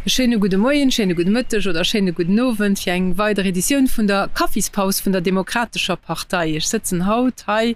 E schéine gudde Moien, schéine gudde Mëtteg oder schéine gudden Owend fir eng weider Editioun vun der Kaffispaus vun der Demokratescher Partei. Ech sëtzen haut hei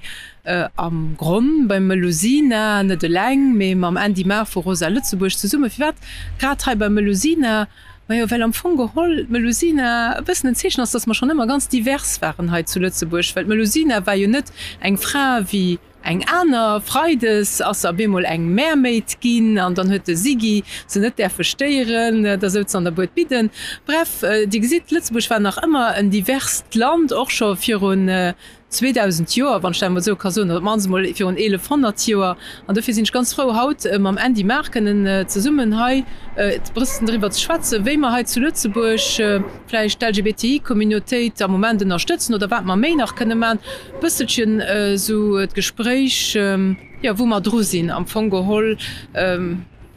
am Gronn beim Melusina, net eleng, mee mam Andy Maar vu Rosa Lëtzebuerg zesummen. Firwat grad hei beim Melusina? Majo, well am Fong geholl d'Melusina e bëssen en Zeechen ass, dass mer schonn ëmmer ganz divers waren hei zu Lëtzebuerg, well d'Melusina war jo net eng Fra wéi eng aner. Freides ass se op eemol eng Mermaid ginn an dann huet de Siggy se net däerfe stéieren, da souz se an der Bued bidden. Bref, Dir gesitt, Lëtzebuerg war nach ëmmer en diverst Land, och scho virun 2000 Joer, wann ech dat emol esou ka soen, oder op d'mannst emol virun 1100 Joer. An dofir sinn ech ganz frou, haut mam Andy Maar kënnen zesummen hei e bëssen driwwer ze schwätzen, wéi mer hei zu Lëtzebuerg vläicht d'LGBTI-Communautéit am Moment ënnerstëtzen oder wat mer méi nach kënne maachen. E bësselchen esou d'Gespréich, jo, wou mer dru sinn am Fong geholl.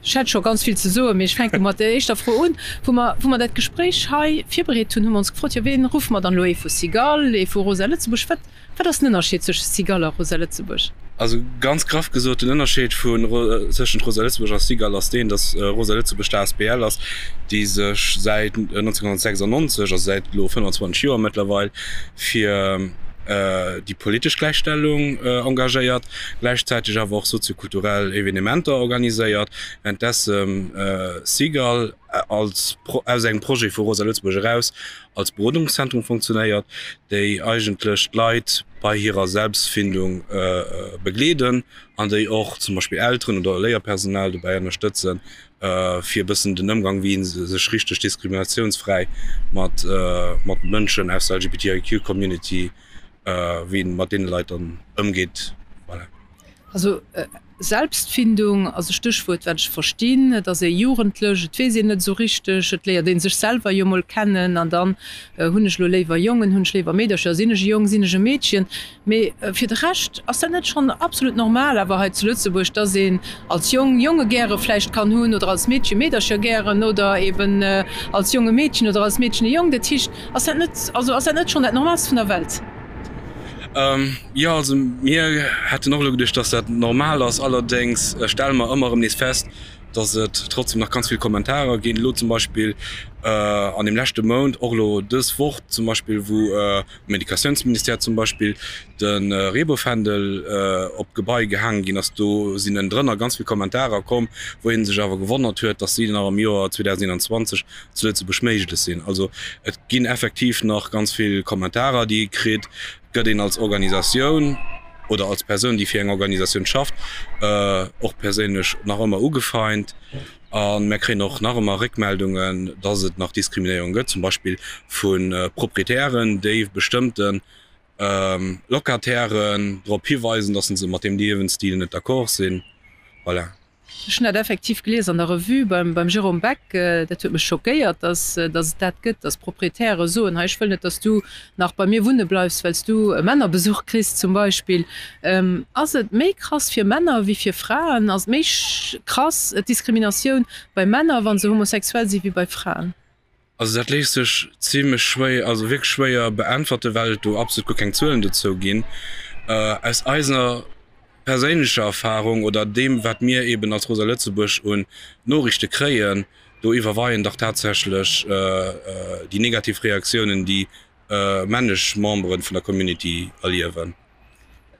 Ech hätt scho ganz vill ze soen, mee ech fänke mat der éischter Fro un. Wou mer, wou mer dat Gespréich hei virbereet hunn, hu mer ons gefrot, jo ween ruffe mer dann elo, ee vu Cigale, ee vu Rosa Lëtzebuerg? Wat, wat ass den Ënnerscheed zwësche Cigale a Rosa Lëtzebuerg? Also ganz graff gesot, den Ënnerscheed vun, tëschent Rosa Lëtzebuerg a Cigale ass deen, datt Rosa Lëtzebuerg d'ASBL ass, déi sech säit 1996, also säit elo 25 Joer mëttlerweil, fir déi politesch Gläichstellung engagéiert, gläichzäiteg awer och soziokulturell Evenementer organiséiert, wärenddessen Cigale als aus engem Projet vu Rosa Lëtzebuerg eraus als Berodungszentrum funktionéiert, déi eigentlech d'Leit bei hirer Selbstfindung begleeden an déi och zum Beispill Elteren oder Léierpersonal dobäi ënnerstëtzen, fir e bëssen den Ëmgang, wéi ee sech richteg diskriminatiounsfräi mat mat Mënschen aus der LGBTIQ Community, wéi een mat deene Leit dann ëmgeet. Voilà. Also Selbstfindung ass e Stéchwuert, wat ech verstinn. Et ass ee Jugendlech, et weess een net esou richteg, et léiert ee sech selwer jo mol kennen an dann, hunn ech elo léiwer Jongen, hunn ech léiwer Meedercher, sinn ech e Jong, sinn ech e Meedchen? Mee fir de Rescht ass dat net schonn absolut normal awer hei zu Lëtzebuerg, dass een als Jong Jonge gäre vläicht kann hunn oder als Meedche Meedercher gären oder eben als Jong e Meedchen oder als Meedchen e Jong? Dat heescht, ass dat net, also ass dat net schonn dat Normaalst vun der Welt? Jo, also mir hätten och elo geduecht, dass dat normal ass. Allerdéngs stelle mer ëmmer erëm nees fest, dass et trotzdem nach ganz vill Kommentarer ginn. Elo zum Beispill an deem leschte Mount, och elo dës Woch zum Beispill, wou um Educatiounsministère zum Beispill de Reebouffändel op d'Gebai gehaange ginn ass, do sinn ënnendrënner ganz vill Kommentarer komm, wou ee sech awer gewonnert huet, dass si nach am Joer 2021 zu Lëtzebuerg méiglech sinn. Also et ginn effektiv nach ganz vill Kommentarer, déi ee kritt. Et gëtt een als Organisatioun oder als Persoun, déi fir eng Organisatioun schafft, och perséinlech nach ëmmer ugefeint. A mär kréien och nach ëmmer Réckmeldungen, dass et nach Diskriminéierung gëtt, zum Beispill vu Proprietären, déi bestëmmte Locatairen drop hiweisen, dass se mat deem Liewensstil net d'accord sinn. Voilà. Ech hunn dat effektiv gelies an der Revue beim Jérôme Beck. Dat huet mech schockéiert, dass et dat gëtt, dass Proprietäre soen, hei ech wëll net, dass du nach bei mir wunne bleifs, well s du Männerbesuch kriss zum Beispill. Ass et méi krass fir Männer wéi fir Fraen? Ass et méi krass d'Diskriminatioun bei Männer, wa se homosexuell si wéi bei Fraen? Also dat léisst sech zimlech schwéier, also wierklech schwéier beäntwerte well et do absolut guer keng Zuelen dozou ginn. Aus eiser perséinlecher Erfahrung oder deem wat mir eben als Rosa Lëtzebuerg un Noriichte kréien, do iwwerweien dach tatsächlech déi negativ Reaktiounen déi männlech Membere vun der Community erliewen.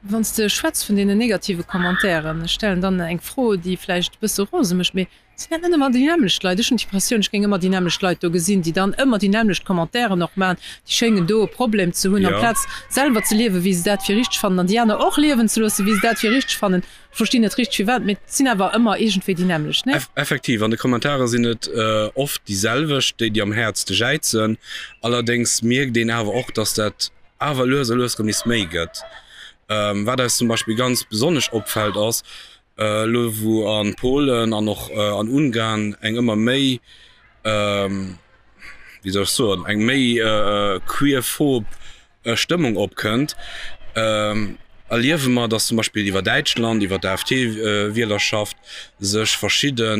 Wann s de schwätz vun deenen negative Commentairen, ech stellen dann eng Fro, déi vläicht e bësse rose mécht, mee sinn dat net ëmmer déi nämmlecht Leit? Ech hunn d'Impressioun, ech géing ëmmer déi nämmlecht Leit do gesinn, déi dann ëmmer déi nämmlecht Commentairen och maachen. Déi schéngen do e Problem ze hunn, amplaz selwer ze liewen, wéi se dat fir richteg fannen, an déi aner och liewen ze loossen, wéi se dat fir richteg fannen. Ech verstinn net richteg firwat, mee et sinn awer ëmmer iergendwéi déi nämmlecht, nee? Effektiv, an de Kommentare sinn et oft déi selwecht, déi déi am häertste jäizen. Allerdéngs mierkt een awer och, dass dat awer lues a lues erëm nees méi gëtt. Wat eis zum Beispill ganz besonnesch opfält ass, elo wou a Polen an och an Ungarn eng ëmmer méi, wéi soll ech soen, eng méi queerphob Stëmmung opkënnt, erliewe mer, datt zum Beispill iwwer Däitschland, iwwer d'AfD-Wielerschaft sech verschidde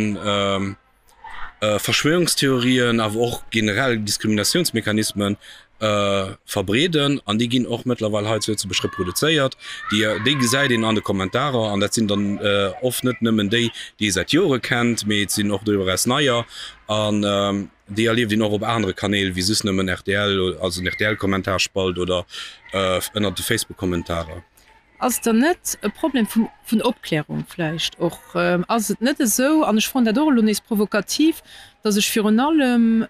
Verschwörungstheorien, awer och generell Diskriminatiounsmechanismen. Verbreeden an déi ginn och mëttlerweil hei zu Lëtzebuerg reproduzéiert. Déi déi gesäit een an de Kommentarer an dat sinn dann oft net nëmmen déi, déi ee säit Jore kennt, mee et sinn och doriwwer eraus neier an déi erlieft een och op anere Kanäl wéi soss nëmmen rtl, also den RTL-Kommentarspalt oder ënnert de Facebook-Kommentarer. Ass et dann net e Problem vun vun Opklärung vläicht och? Ass et net esou, an ech froen dat och elo nees provokativ, datt ech virun allem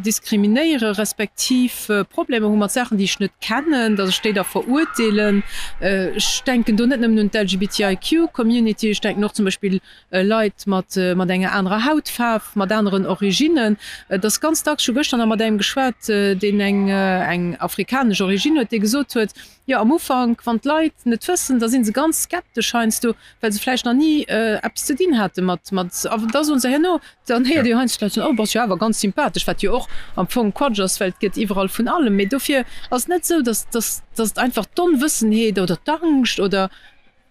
diskriminéiere respektiv Problemer hu mat Saachen, déi ech net kennen, datt ech déi da verurteelen? Ech denken do net nëmmen un d'LGBTIQ-Community, ech denken och zum Beispill Leit mat mat enger anerer Hautfaarf, mat aneren Originnen. Et ass ganz dacks, ech hu gëschter nach mat engem geschwat, deen eng eng afrikanesch Origine huet, dee gesot huet, Jo, am Ufank, wann d'Leit net wëssen, da si se ganz skeptesch heiansdo, well se vläicht nach ni eppes ze dinn hate mat, mat, a da soen se herno, dann héiert ee jo heiansdo d'Leit soen, oh, bass jo awer ganz sympathesch, wat jo och am Fong Quatsch ass, well et gëtt iwwerall vun allem. Mee dofir ass et net esou, dass, dass, dass et einfach d'Onwëssenheet oder d'Angscht oder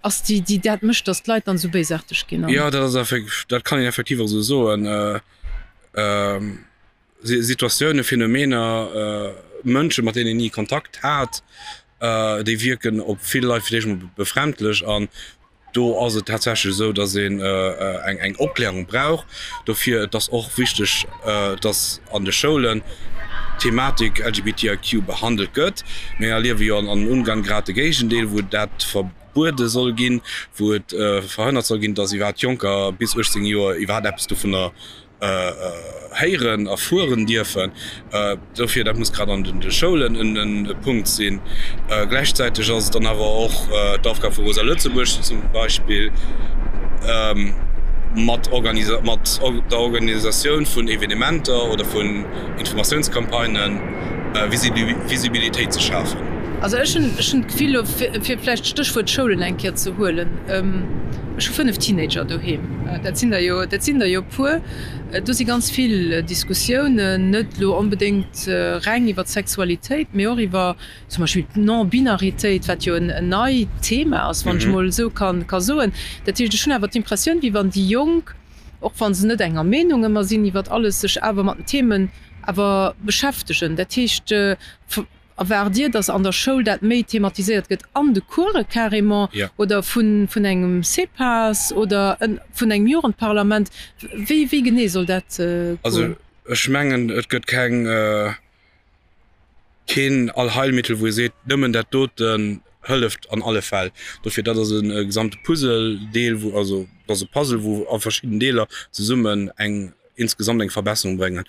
ass, déi, déi dat mécht, dass d'Leit dann esou béisaarteg ginn. Jo, dat ass effek, dat kann een effektiv och esou soen. Situatiounen, Phänomener, Mënschen, mat deenen een ni Kontakt hat, déi wierken op vill Leit fir d'éischt emol befremdlech. An do ass et tatsächlech esou, datt een eng Opklärung brauch dofir. Et ass och wichteg, datt an de Schoulen d'Thematik LGBTIQ behandelt gëtt. Mir erliewe jo an Ungarn grad de Géigendeel, wou dat verbuede soll ginn, wou et verhënnert soll ginn, datt iwwerhaapt Jonker bis 18 Joer iwwerhaapt eppes dovunner héieren, erfueren dierfen. Dofir, dat muss grad an de Schoulen e Punkt sinn. Gläichzäiteg ass et dann awer och d'Aufgab vu Rosa Lëtzebuerg zum Beispill, mat der Organisatioun vun Evenementer oder vun Informatiounscampagnen Visibilitéit ze schafen. Also ech hunn d'Gefill, elo fir vläicht d'Stéchwuert Schoulen eng Kéier ze huelen, ech hu 5 Teenager doheem, dat sinn der jo, dat sinn der jo e puer, do si ganz vill Diskussiounen, net elo onbedéngt reng iwwer d'Sexualitéit, mee och iwwer zum Beispill d'Non-Binaritéit, wat jo en neit Thema ass, wann ech emol esou ka soen. Dat heescht, ech hunn awer d'Impressioun, wéi wann déi Jonk, och wa se net enger Meenung ëmmer sinn iwwer alles, sech awer mat den Themen awer beschäftegen. Dat heescht, erwaart Dir, datt an der Schoul dat méi thematiséiert gëtt, an de Course carrément, oder vun engem CEPAS oder vun engem Jugendparlament? Wéi wéi genee soll dat goen? Also ech mengen, et gëtt keng, keen Allheilmittel, wou ee seet, nëmmen dat doten hëlleft an alle Fäll. Dofir, dat ass e gesamte Puzzledeel, wou, also dat ass e Puzzle, wou a verschidden Deeler zesummen eng insgesamt eng Verbesserung bréngen.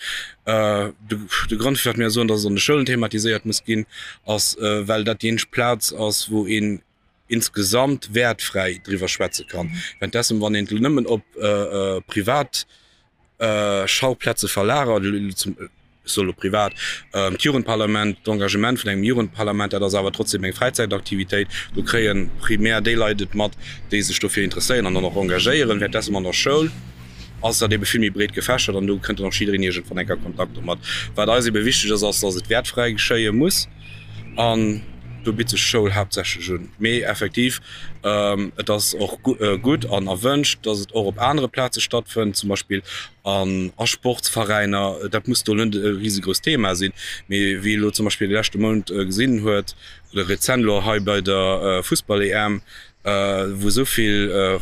De Grond, firwat mir soen, datt et an de Schoulen thematiséiert muss ginn, ass, well dat déi eenzeg Plaz ass, wou een insgesamt wäertfräi driwwer schwätze kann. Währenddessen, wann een et elo nëmmen op privat Schauplätze verlagert, ech soe lo privat, d'Jugendparlament, d'Engagement vun engem Jugendparlament, dat ass awer trotzdem eng Fräizäitaktivitéit, do kréie primär déi Leit et mat, déi sech dofir interesséieren an dann och engagéieren. Währenddessen an der Schoul ass dat ebe vill méi breet gefächert an do kënnt dann och jiddereen iergendwann eng Kéier a Kontakt domat. Wat eis ebe wichteg ass, ass, dass et wäertfräi geschéie muss an do bitt sech d'Schoul haaptsächlech un. Mee effektiv, et ass och gutt an erwënscht, dass et och op anere Plaze stattfënnt, zum Beispill an a Sportsveräiner. Dat muss do net e risegrousst Thema sinn, mee wéi ee lo zum Beispill de leschte Mount gesinn huet oder rezent elo hei bei der Fussball-EM, wou esou vill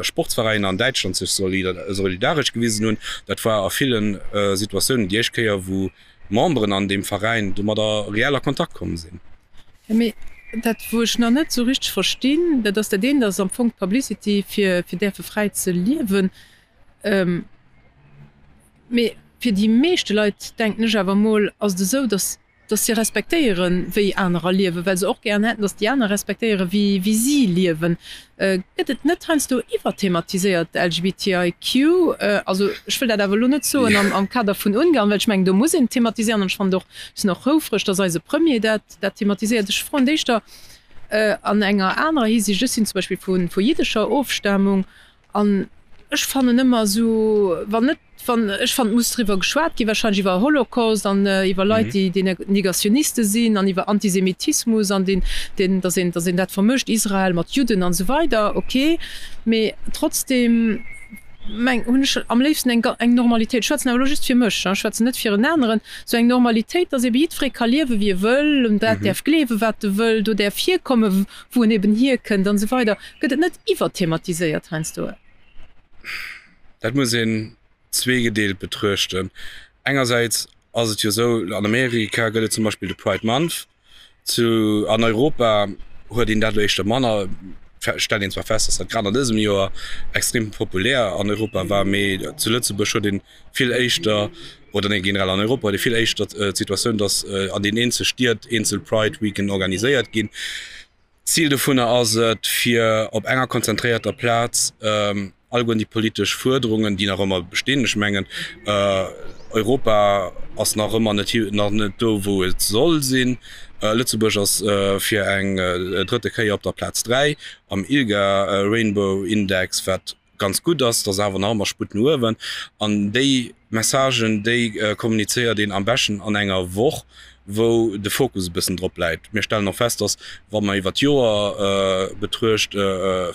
Sportsveräiner an Däitschland sech solidaresch gewisen hunn, dat war a ville Situatiounen déi éischt Kéier, wou Memberen an deem Veräin domadder reell a Kontakt komm sinn. Mee dat, wou ech nach net esou richteg verstinn, dat ass dat eent ass am Fong d'Publicity fir fir däerfe fräi ze liewen. Mee fir déi meeschte Leit, denken ech awer emol, ass et esou, datt datt si respektéieren, wéi anerer liewen, well se och gären hätten, datt déi aner respektéieren, wéi wéi si liewen. Gëtt et net heiansdo iwwerthematiséiert, LGBTIQ? Also ech wëll dat awer elo net soen am am Kader vun Ungarn, well ech mengen, do muss een et thematiséieren an ech fannen et och, ech sinn och houfreg, datt eise Premier dat dat thematiséiert. Ech froen d'éischter an enger anerer Hisiicht, ech sinn zum Beispill vu vu jiddescher Ofstamung An ech fannen ëmmer esou, wann net, wann, ech fannen, et muss driwwer geschwat ginn, wahrscheinlech iwwer Holocaust an iwwer Leit, déi, déi Negationiste sinn an iwwer Antisemitismus an deen, deen, datt een, datt een dat vermëscht, Israel mat Judden an esou weider, ok. Mee trotzdem. meng hunn ech am léifsten eng eng Normalitéit, ech schwätzen awer elo just fir mech, ech schwätzen net fir en aneren, sou eng Normalitéit, dass ebe jiddweree ka liewe wéi e wëll, un dat däerf gleewe wat e wëll, do däerf hierkomme wou en eben hierkënnt an esou weider. Gëtt et net iwwerthematiséiert heiansdo? Dat muss een zweegedeelt betruechten. Engersäits ass et jo esou, an Amerika gëtt et zum Beispill de Pride Month, Zu an Europa huet een dat elo éischter manner. Stellt een zwar fest, datt dat grad an dësem Joer extrem populär an Europa war, mee zu Lëtzebuerg huet een vill éischter, oder nee generell an Europa huet ee vill éischter d'Situatioun, datt an den eenzel Stied eenzel Pride Weeken organiséiert ginn. Zil dovunner ass et, fir op enger konzentréierter Plaz alleguerten déi politesch Fuerderungen, déi nach ëmmer bestinn, ech mengen, Europa ass nach ëmmer net nach net do, wou et soll sinn, Lëtzebuerg ass fir eng drëtte Kéier op der Plaz 3 am ILGA Rainbow Index, wat ganz gutt ass, et ass awer nach ëmmer Sputt no uewen. An déi Messagen, déi kommunizéiert een am beschten an enger Woch, wou de Fokus e bëssen drop läit. Mir stellen och fest, dass, wa mer iwwer d'Joer betruecht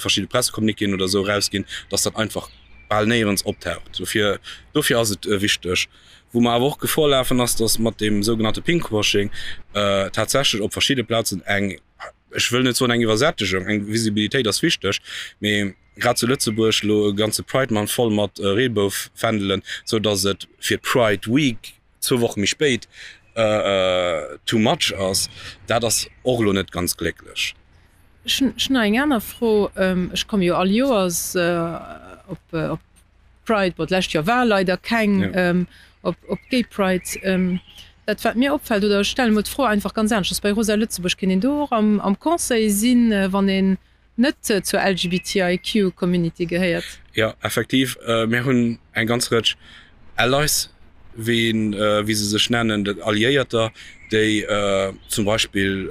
verschidde Pressecommuniquéen oder esou erausginn, dass dat einfach bal néierens optaucht. Dofir, dofir ass et wichteg. Wou mer awer och Gefor lafen, ass, dass mat deem sougenannte Pinkwashing tatsächlech op verschidde Plazen eng, ech wëll net soen eng Iwwersättegung, eng Visibilitéit ass wichteg, mee grad zu Lëtzebuerg elo e ganze Pride Month voll mat Reebouffändelen, sou datt et fir d'Pride Week zwou Woche méi spéit too much ass, dat ass och elo net ganz glécklech. Ech hunn nach eng aner Fro. Ech komme jo all Joers op Pride, bon d'lescht Joer war leider keng, op d'Gay Pride. Dat wat mir opfält, oder ech stellen emol d'Fro einfach ganz aneschters, bei Rosa Lëtzebuerg, kéint een do och am Conseil sinn, wann een net zur LGBTIQ Community gehéiert? Jo, effektiv. Mir hunn eng ganz Rëtsch Allies, wéi wéi se sech nennen, dat Alliéierter, déi zum Beispill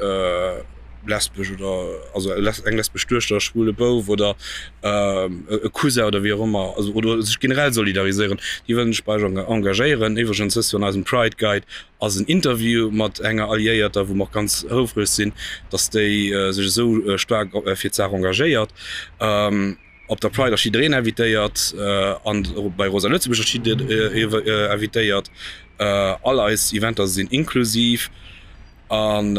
lesbesch oder also eng lesbesch Duechter, e schwule Bouf oder e Cousin oder wéi och ëmmer, also oder sech generell solidariséieren, déi wëllen sech bei eis engagéieren. Iwwregens dëst Joer an eisem Pride Guide ass en Interview mat enger Alliéierter, wou mer och ganz houfreg sinn, dass déi sech esou staark fir d'Saach engagéiert. Op der Pride ass jiddereen invitéiert an bei Rosa Lëtzebuerg ass jiddereen invitéiert. All eis Eventer sinn inklusiv an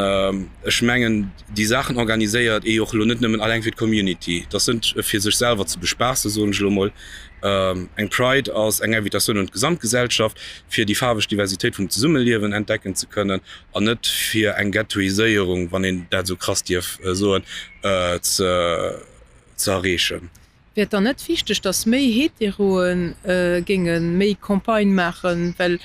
ech mengen déi Saachen organiséiert ee jo och elo net nëmmen alleng fir d'Community. Dat ass net fir sech selwer ze bespaassen, soen ech elo mol. Eng Pride ass eng Invitatioun un d'Gesamtgesellschaft, fir déi faarweg Diversitéit vum Zesummeliewen entdecken ze kënnen an net fir eng Ghettoiséierung, wann een dat esou krass dierf soen, ze. ze erreechen. Wär et dann net wichteg, datt méi Heteroe géinge méi Campagne maachen? Well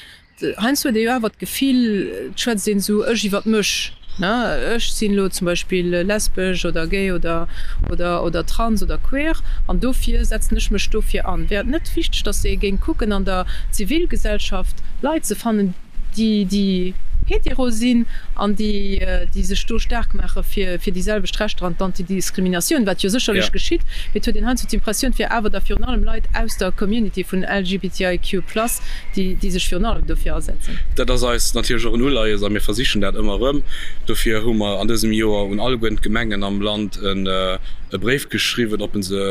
heiansdo huet ee jo awer d'Gefill, et schwätzt een esou ech iwwert mech, ne, ech sinn elo zum Beispill lesbesch oder gay oder oder oder trans oder queer an dofir setzen ech mech dofir an. Wär et net wichteg, datt ee géing kucken an der Zivilgesellschaft Leit ze fannen, déi déi hetero sinn an déi déi sech do staark maache fir fir déi selwecht Rechter an d'Antidiskriminatioun, wat jo sécherlech geschitt, mee et huet een heiansdo d'Impressioun, et wier awer da virun allem Leit aus der Community vun LGBTIQ plus, déi déi sech virun allem dofir asetzen. Dat ass eis natierlech och en Uleies a mir versichen dat ëmmer erëm. Dofir hu mer an dësem Joer un alleguerten d'Gemengen am Land e Bréif geschriwwen, ob se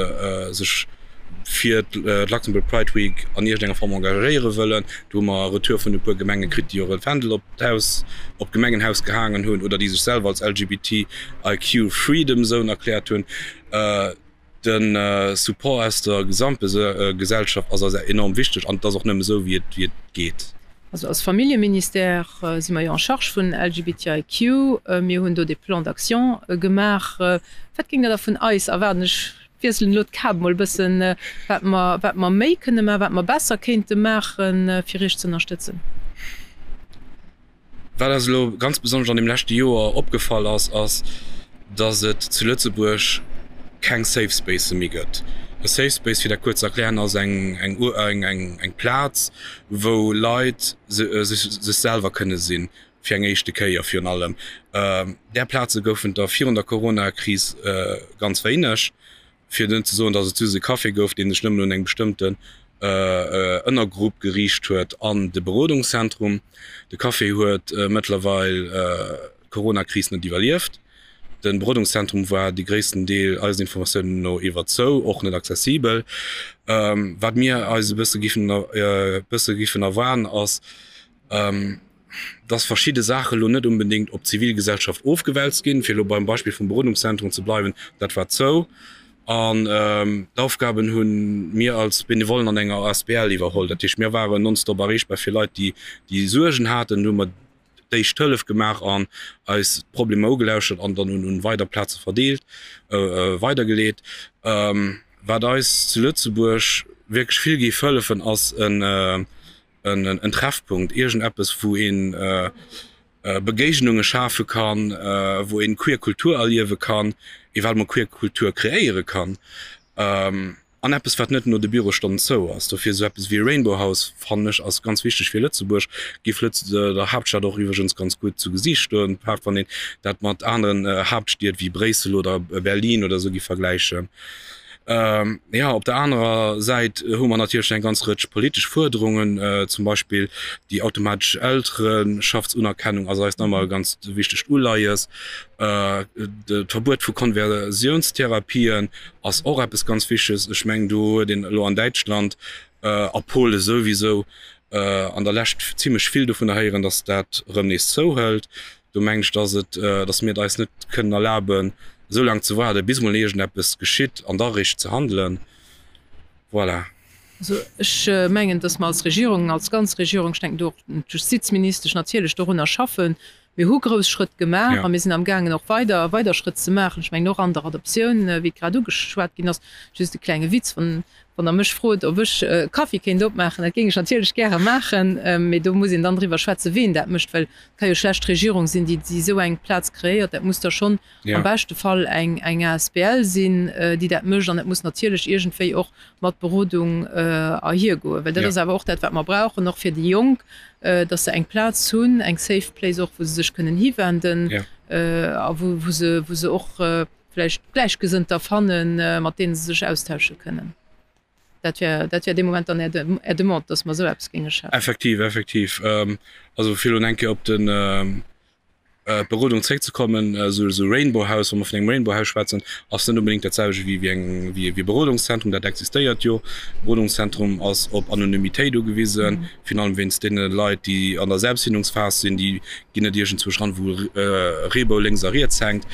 sech fir d'Luxembourg Pride Week an iergendenger Form engagéiere wëllen. Do hu mer e Retour vun e puer Gemenge kritt, déi och e Fändel op d'Haus, op d'Gemengenhaus gehaangen hunn oder déi sech selwer als LGBTIQ Freedom Zone erkläert hunn. De Support aus der Gesamtgesellschaft ass eis enorm wichteg an et ass och nëmme esou, wéi et geet. Also als Familljeministère si mer jo en charge vun LGBTIQ. Mir hunn do dee Plan d'action gemaach. Wat géingt Der da vun eis erwaarden? Ech wiesselen elo d'Kap mol e bëssen, wat mer, wat mer méi kënne maachen, wat mer besser kéinte maachen, fir Iech ze ënnerstëtzen. Wat eis elo ganz besonnesch an deem leschte Joer opgefall ass, ass, dass et zu Lëtzebuerg keng Safe Spacë méi gëtt. E Safe Space, fir dat kuerz ze erklären, ass eng, eng, eng, eng Plaz, wou Leit sech, sech selwer kënne sinn, fir eng éischte Kéier virun allem. Där Plaze goufen der virun der Corona-Kris ganz wéineg, fir net ze soen, datt et just e Café gouf, dee sech nëmmen un eng bestëmmten Ënnergrupp geriicht huet an de Berodungszentrum. De Café huet mëttlerweil d'Corona-Kris net iwwerlieft. De Berodungszentrum war de gréissten Deel eisen Informatiounen no iwwer zou, och net accessibel. Wat mir eis e bësse giffen e bësse giffen erwaarden ass, dass verschidde Saache lo net unbedéngt op d'Zivilgesellschaft ofgewälzt ginn, fir elo beim Beispill vum Berodungszentrum ze bleiwen, dat war zou an d'Aufgaben hu mir als Benevollen an enger asbl iwwerholl. Dat heescht, mir waren nonstop erreechbar fir Leit, déi déi Suergen haten, do hu mer d'éischt Hëllef gemaach an eis d'Problemer ugelauschert an dann un weider Plaze verdeelt, weidergeleet. Wat eis zu Lëtzebuerg wierklech vill géif hëllefen, ass en en Treffpunkt, iergendeppes wou een Begéignunge schafe kann, wou een queer Kultur erliewe kann, ewell mol queer Kultur kreéiere kann an eppes wat net no de Bürostonnen zou ass. Dofir esou eppes wéi e Rainbow House fannen ech ass ganz wichteg fir Lëtzebuerg, géif Lëtz der Haaptstad och iwwregens ganz gutt zu Gesiicht stoen, grad wann een dat mat aneren Haaptstied wéi Bréissel oder Berlin oder esou géif vergläichen. Jo, op der anerer Säit hu mer natierlech eng ganz Rëtsch politesch Fuerderungen, zum Beispill déi automatesch Eltereschaftsunerkennung ass eis nach ëmmer e ganz wichtegt Uleies. D'Verbuet vu Konversiounstherapien ass och eppes ganz Wichteges. Ech mengen, do huet een elo an Däitschland a Pole souwisou an der Lescht zimlech vill dovunner héieren, datt dat erëm nees zouhëlt. Do mengen ech, dass et, dass mir et eis net kënnen erlaben, esou laang ze waarden, bis emol iergendeppes geschitt an da eréischt ze handelen. Voilà. Also ech mengen, dass mer als Regierung, als ganz Regierung, ech denken do och un d'Justizministesch natierlech, dorunner schaffen. Mir hu grouss Schrëtt gemaach a mir sinn amgaangen och weider, weider Schrëtt ze maachen. Ech mengen och an der Adoptioun, wéi et grad ugeschwat ginn ass. Just e klenge Witz, wann Wann Der mech frot, ob ech e Kaffi kéint opmaachen, dat géing ech natierlech gäre maachen, mee do muss een dann driwwer schwätzen, ween dat mécht, well et ka jo schlecht d'Regierung sinn, déi esou eng Plaz kreéiert. Dat muss da schonn am beschte Fall eng asbl sinn, déi dat mécht, an et muss natierlech iergendwéi och mat Berodung erhiergoen, well dat ass awer och dat, wat mer brauchen, och fir déi Jonk, datt se eng Plaz hunn, eng safe place och, wou se sech kënnen hiwenden a wou se och vläicht Gläichgesënnter fannen, mat deene se sech austausche kënnen. Dat wär, dat wär dee Moment dann Är Demande, dass mer esou eppes géinge schafen. Effektiv, effektiv. Also fir elo eng Kéier op den, d'Berodung zréckzekommen, esou esou Rainbow House, wa mer vun engem Rainbow House schwätzen, ass net onbedéngt dat selwecht wéi wéi eng, wéi e Berodungszentrum. Dat existéiert jo. E Berodungszentrum ass op Anonymitéit ugewisen, virun allem wéinst deene Leit, déi an der Selbstfindungsphas sinn, déi ginn net iergendzwousch ran, wou e Reebou lénks a riets hänkt.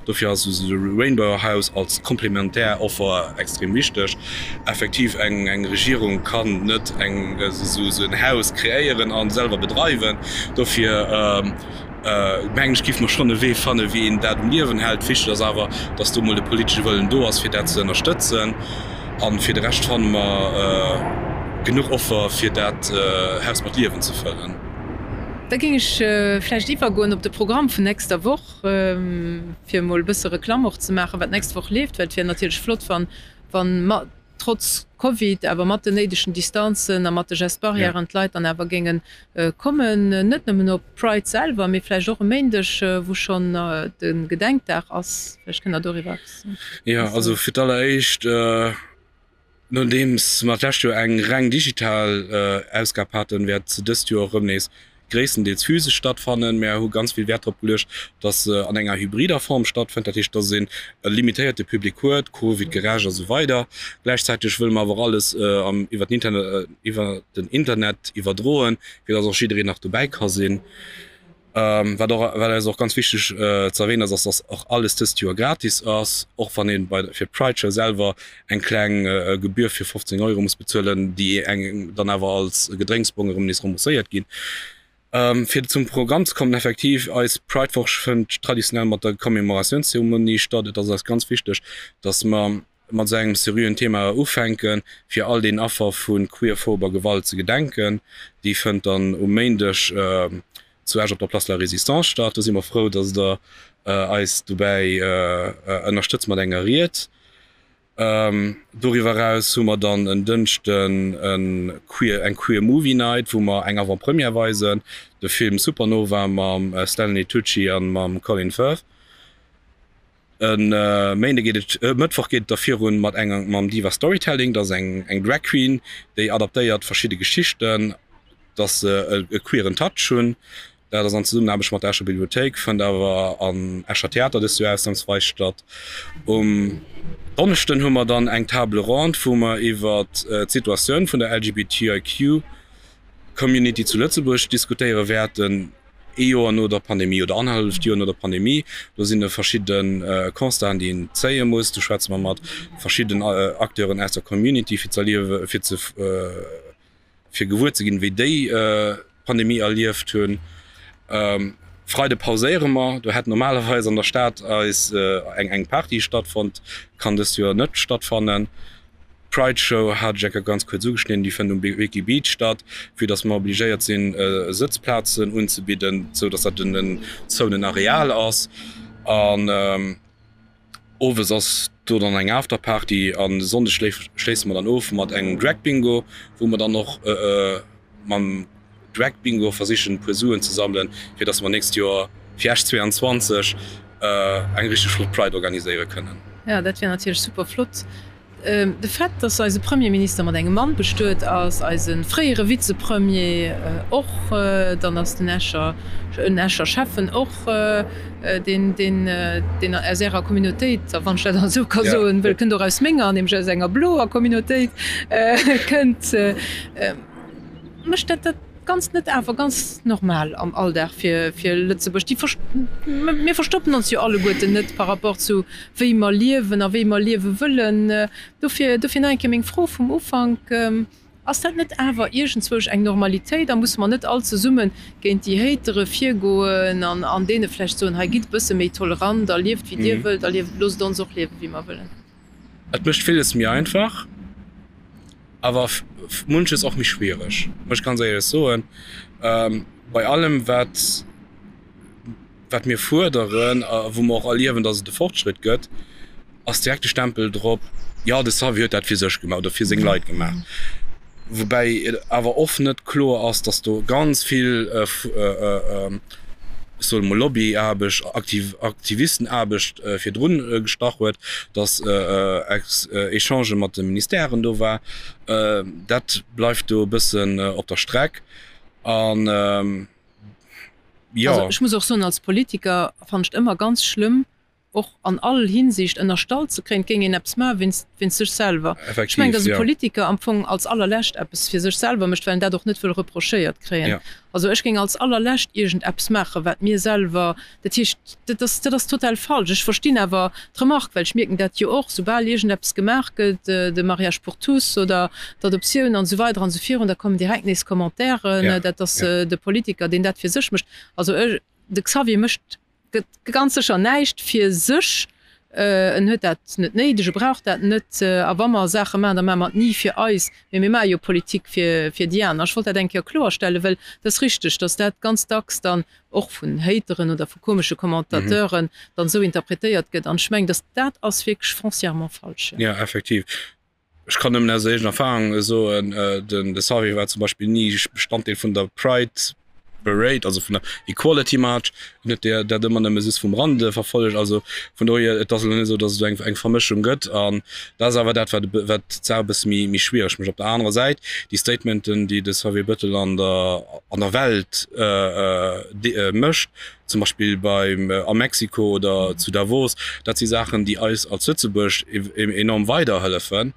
Dofir ass esou de Rainbow House als komplementär Offer extrem wichteg. Effektiv, eng Regierung kann net eng esou en Haus kreéieren a selwer bedreiwen. Dofir mengen ech, géife mer schonn e Wee fannen, wéi een dat um Liewen hält. Wichteg ass awer, datt do mol de politesche Wëllen do ass, fir dat ze ënnerstëtzen. A fir de Rescht fanne mer genuch Offer, fir dat Haus mat Liewen ze fëllen. Da géing ech vläicht iwwergoen op de Programm vun nächster Woch, fir emol e bësse Reklamm och ze maachen, wat d'nächst Woch leeft, well et wier natierlech flott, wann, wann trotz Covid, awer mat den néidegen Distanzen a mat de Gestes barrièren d'Leit dann awer géinge kommen, net nëmmen op d'Pride selwer, mee vläicht och e Méindeg, wou schonn de Gedenkdag ass. Vläicht kënnt Der doriwwer eppes soen. Jo, also fir d'alleréischt, Nodeems mer d'lescht Joer eng reng digital Ausgab haten, wäert se dëst Joer erëm nees gréisstendeels physesch stattfannen. Mär hu ganz vill Wäert drop geluecht, dass se an enger hybrider Form stattfënnt, dat heescht, dass een e limitéierte Public huet, Covid-gerecht a sou weider. Gläichzäiteg wëlle mer awer och alles iwwer den Internet iwwerdroen, fir dass och jiddereen nach dobäi ka sinn. Wat och, wat eis och ganz wichteg ze erwähnen ass, ass dass och alles dëst Joer gratis ass, och wann een bei fir d'Pride Show selwer eng kleng Gebühr fir 15 Euro muss bezuelen, déi engem dann awer als Gedrénksbong erëm nees rembourséiert ginn. Fir zum Programm ze kommen, effektiv, eis Pride Woch fënnt traditionell mat der Commémoratiounszeremonie statt. Et ass eis ganz wichteg, dass mer mat esou engem seriöen Thema ufänken, fir all den Affer vu queerphober Gewalt ze gedenken. Déi fënnt dann um Méindeg zu Esch op der Place de la Résistance statt. Do si mer frou, dass Der eis dobäi ënnerstëtzt mat enger Ried. Doriwwer eraus hu mer dann en Dënschden e Queer, eng Queer Movie Night, wou mer eng Avant-Première weisen, de Film Supernova mam Stanley Tucci a mam Colin Firth. E Méinde geet et, e Mëttwoch geet et da virun mat enger, mam Diva Storytelling. Dat ass eng eng Drag Queen, déi adaptéiert verschidde Geschichten, dass se e queeren Touch hunn. Dat ass an Zesummenaarbecht mat der Escher Bibliothéik, fënnt awer am Escher Theater dëst Joer ausnamsweis statt. Um Donneschden hu mer dann eng Table ronde, wou mer iwwer d'Situatioun vun der LGBTIQ Community zu Lëtzebuerg diskutéiere wäerten, ee Joer no der Pandemie oder annerhalleft Joer no der Pandemie. Do sinn e verschidde Constaten, déi een zéie muss. Do schwätze mer mat verschidden Acteuren aus der Community, fir ze erliewe fir ze fir gewuer ze ginn, wéi déi d'Pandemie erlieft hunn. Freide pauséiere mer. Do hätt normalerweis an der Stad eis eng eng Party stattfonnt, kann dëst Joer net stattfannen. D'Pride Show hat ech eng Kéier ganz kuerz ugeschnidden, déi fënnt um Wiki Beach statt, vue dass mer obligéiert sinn Sëtzplazen unzebidden, sou dass dat en zouenen Areal ass. An Owes ass do dann eng Afterparty an e Sonndeg schléisse mer dann of mat engem Drag Bingo, wou mer dann och mam Drag Bingo versichen e puer Suen ze sammelen, fir dass mer nächst Joer fir Esch 22 eng richteg flott Pride organiséiere kënnen. Jo, dat wier natierlech super flott. De Fait, datt eise Premierminister mat engem Mann bestuet ass, eise fréiere Vizepremier och, dann ass den Escher, en Escher Schäffen och, deen, deen, deen aus Ärer Communautéit, a wann ech dat esou ka soen, well e kënnt och aus menger, nämlech aus enger bloer Communautéit kënnt, mécht dat dat Ganzt net awer ganz normal am Alldag fir fir Lëtzebuerg. Déi mir verstoppen ons jo alleguerten net par rapport zu wéi mer liewen a wéi mer liewe wëllen. Dofir dofir nach eng Kéier meng Fro vum Ufank, Ass dat net awer iergendzwousch eng Normalitéit a musse mer net all zesumme géint déi Hatere virgoen an an deene vläicht soen, hei gitt e bësse méi tolerant a lieft wéi dir wëllt a lieft loosst ons och liewe wéi mer wëllen? Et mécht villes méi einfach, awer munches och méi schwiereg, muss ech ganz éierlech soen. Bei allem wat wat mir fuerderen a wou mer och erliewen, datt et e Fortschritt gëtt, ass direkt de Stempel drop, jo de Xavier huet dat fir sech gemaach oder fir seng Leit gemaach. Woubäi et awer oft net kloer ass, datt do ganz vill, ech soe mol Lobbyaarbecht, Aktivistenaarbecht virdrun gestach huet, datt Echangë mat de Ministèren do war. Dat bleift do e bëssen op der Streck. An jo. Also ech muss och soen, als Politiker fannen ech et ëmmer ganz schlëmm, och an all Hinsicht ënnerstallt ze kréien, et géing een eppes maache wéinst wéinst sech selwer. Ech mengen, datt e Politiker am Fong als allerlescht eppes fir sech selwer mécht, well en dat och net wëll reprochéiert kréien. Also ech géing als allerlescht iergend eppes maachen, wat mir selwer, dat heescht, dat ass, dat ass total falsch. Ech verstinn awer d'Remarque, well ech mierken dat jo och, soubal iergend eppes gemaach gëtt, de Mariage pour tous oder d'Adoptioun an esou weider an esou virun, da kommen direkt nees Commentairen, dat ass de Politiker, deen dat fir sech mécht. Also ech, de Xavier mécht Gëtt ganz sécher näischt fir sech. En huet dat net néideg, e brauch dat net. A wa mer Saache maachen, da maache mer et ni fir eis, mee mir maache jo Politik fir déi aner. Ech wollt dat eng Kéier kloerstellen, well et ass richteg, datt dat ganz dacks dann och vun Hateren oder vu komesche Commentateuren dann esou interpretéiert gëtt. An ech mengen, datt dat ass wierklech foncièrement falsch. Jo, effektiv. Ech kann nëmmen aus eegener Erfahrung soen, den de Xavier war zum Beispill ni Bestanddeel vun der Pride Parade, also vun der Equality March. En huet der dat ëmmer nëmme just vum Rande verfollegt. Also vun dohier, et ass elo net esou, datt et do eng eng Vermëschung gëtt. An dat ass awer dat, wat wat d'Saach e bësse méi méi schwiereg mécht. Op der anerer Säit, déi Statementen, déi de Xavier Bettel an der an der Welt mécht, zum Beispill beim a Mexiko oder zu Davos, dat si Saachen, déi eis als Lëtzebuerg enorm weiderhëllefen.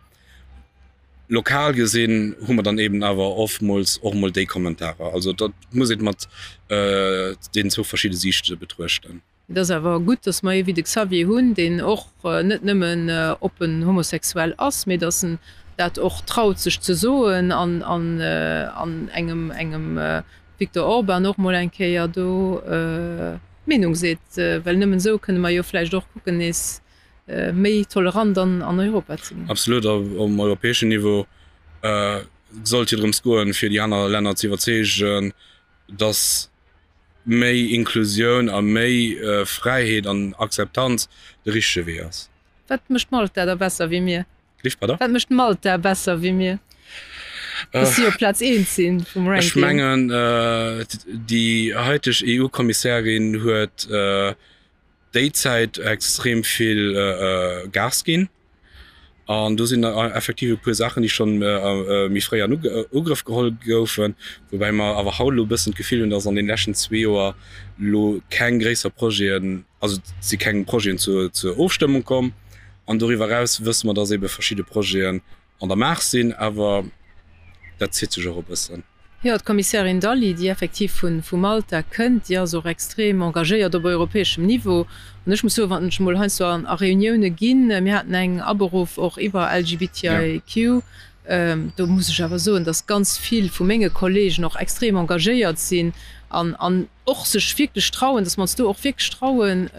Lokal gesinn hu mer dann eben awer oftmools och emol déi Kommentarer. Also dat muss een mat deenen zwou verschidde Siichte betruechten. Et ass awer gutt, datt mer ee wéi de Xavier hunn, deen och net nëmmen oppen homosexuell ass, mee datt en dat och traut sech ze soen an an engem engem Viktor Orban och mol eng Kéier do d'Meenung seet, well nëmmen esou kënne mer jo vläicht och kucken nees méi tolerant an an Europa ze ginn. Absolut, a um europäeschen Niveau sollt jo drëms goen, fir déi aner Länner ze iwwerzeegen, datt méi Inklusioun a méi Fräiheet an Akzeptanz de richtege Wee ass. Wat mécht Malta da besser wéi mir? Lift, pardon? Wat mécht Malta besser wéi mir? Dass si op Plaz eent sinn vum Ranking. Ech mengen, déi haiteg EU-Kommissärin huet déi Zäit extrem vill Gas ginn. An do sinn effektiv e puer Saachen, déi schonn méi fréi an Ugrëff geholl goufen, woubäi mer awer haut elo e bëssen d'Gefill hunn, dass an deene leschten zwee Joer elo keng gréisser Projeten, also et si keng Projeten zur Ofstëmmung komm. An doriwwer eraus wësse mer, dass eebe verschidde Projeten an der Maach sinn, awer dat zitt sech och e bëssen. Jo, d'Kommissärin Dalli, déi effektiv vu Malta kënnt, déi ass och extrem engagéiert op europäeschem Niveau. An ech muss soen, wann ech emol heiansdo a Reunioune ginn, mir haten eng aberuff och iwwer LGBTIQ, do muss ech awer soen, datt ganz vill vu menge Kollegen och extrem engagéiert sinn an och sech wierklech trauen, datt mer ons do och wierklech trauen,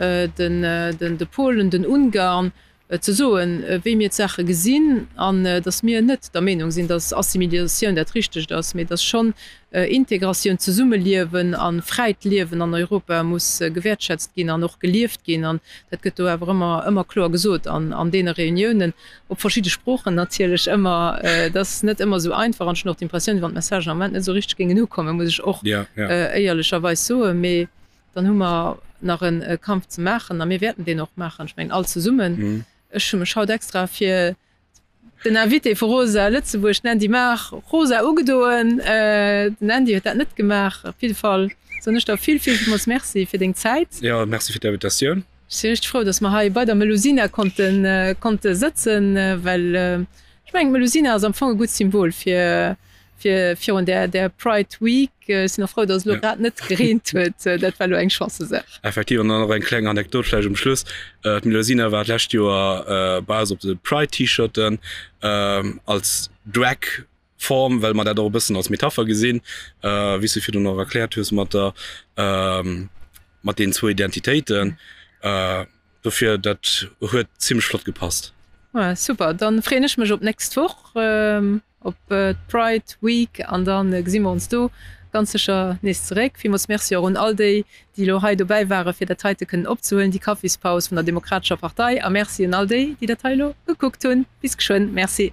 de Polen, den Ungarn, ze soen, wéi mir d'Saache gesinn an datt mir net der Meenung sinn, datt Assimiliatioun dat Richtegt ass, mee datt schonn Integratioun, Zesummeliewen a fräit Liewen an Europa muss gewäertschätzt ginn an och gelieft ginn. An dat gëtt do awer ëmmer, ëmmer kloer gesot an an deene Reuniounen, op verschidde Sproochen natierlech ëmmer. Et ass net ëmmer esou einfach an ech hunn och d'Impressioun, wéi wann d'Messagen am Moment net esou richteg géingen ukommen, muss ech och éierlecherweis soen. Mee Dann hu mer nach e Kampf ze maachen a mir wäerten deen och maachen, ech mengen all zesummen. Ech hu mech haut extra fir den Invité vu Rosa Lëtzebuerg, den Andy Maar, rosa ugedoen. Den Andy huet dat net gemaach. Op jidde Fall soen ech der vill, vill, villmools Merci fir deng Zäit. Jo, Merci fir d'Invitatioun. Ech si richteg frou, dass mer hei bei der Melusina konnten, konnte sëtzen, well ech mengen, d'Melusina ass am Fong e gutt Symbol fir, fir virun där, där Pride Week. Ech sinn och frou, dass et elo grad net gereent huet. Dat war elo eng Chancesaach. Effektiv. An dann och eng kleng Anekdot vläicht um Schluss, D'Melusina war d'lescht Joer bei eis op de Pride-T-Shirten als Drag Form, well mer dat och e bëssen als Metapher gesinn, wéi s du virdrun och erkläert hues mat der, mat deenen zwou Identitéiten. Dofir, dat huet zimmlech flott gepasst. Super, dann freeën ech mech op d'nächst Woch. Op d'Pride Week an da gesi mer ons do ganz sécher nees zeréck. Villmools Merci och un all déi, déi elo hei dobäi ware fir dat heite kënnen opzehuelen, déi Kaffispaus vun der Demokratescher Partei. A Merci un all déi, déi dat hei elo gekuckt hunn. Bis geschwënn. Merci.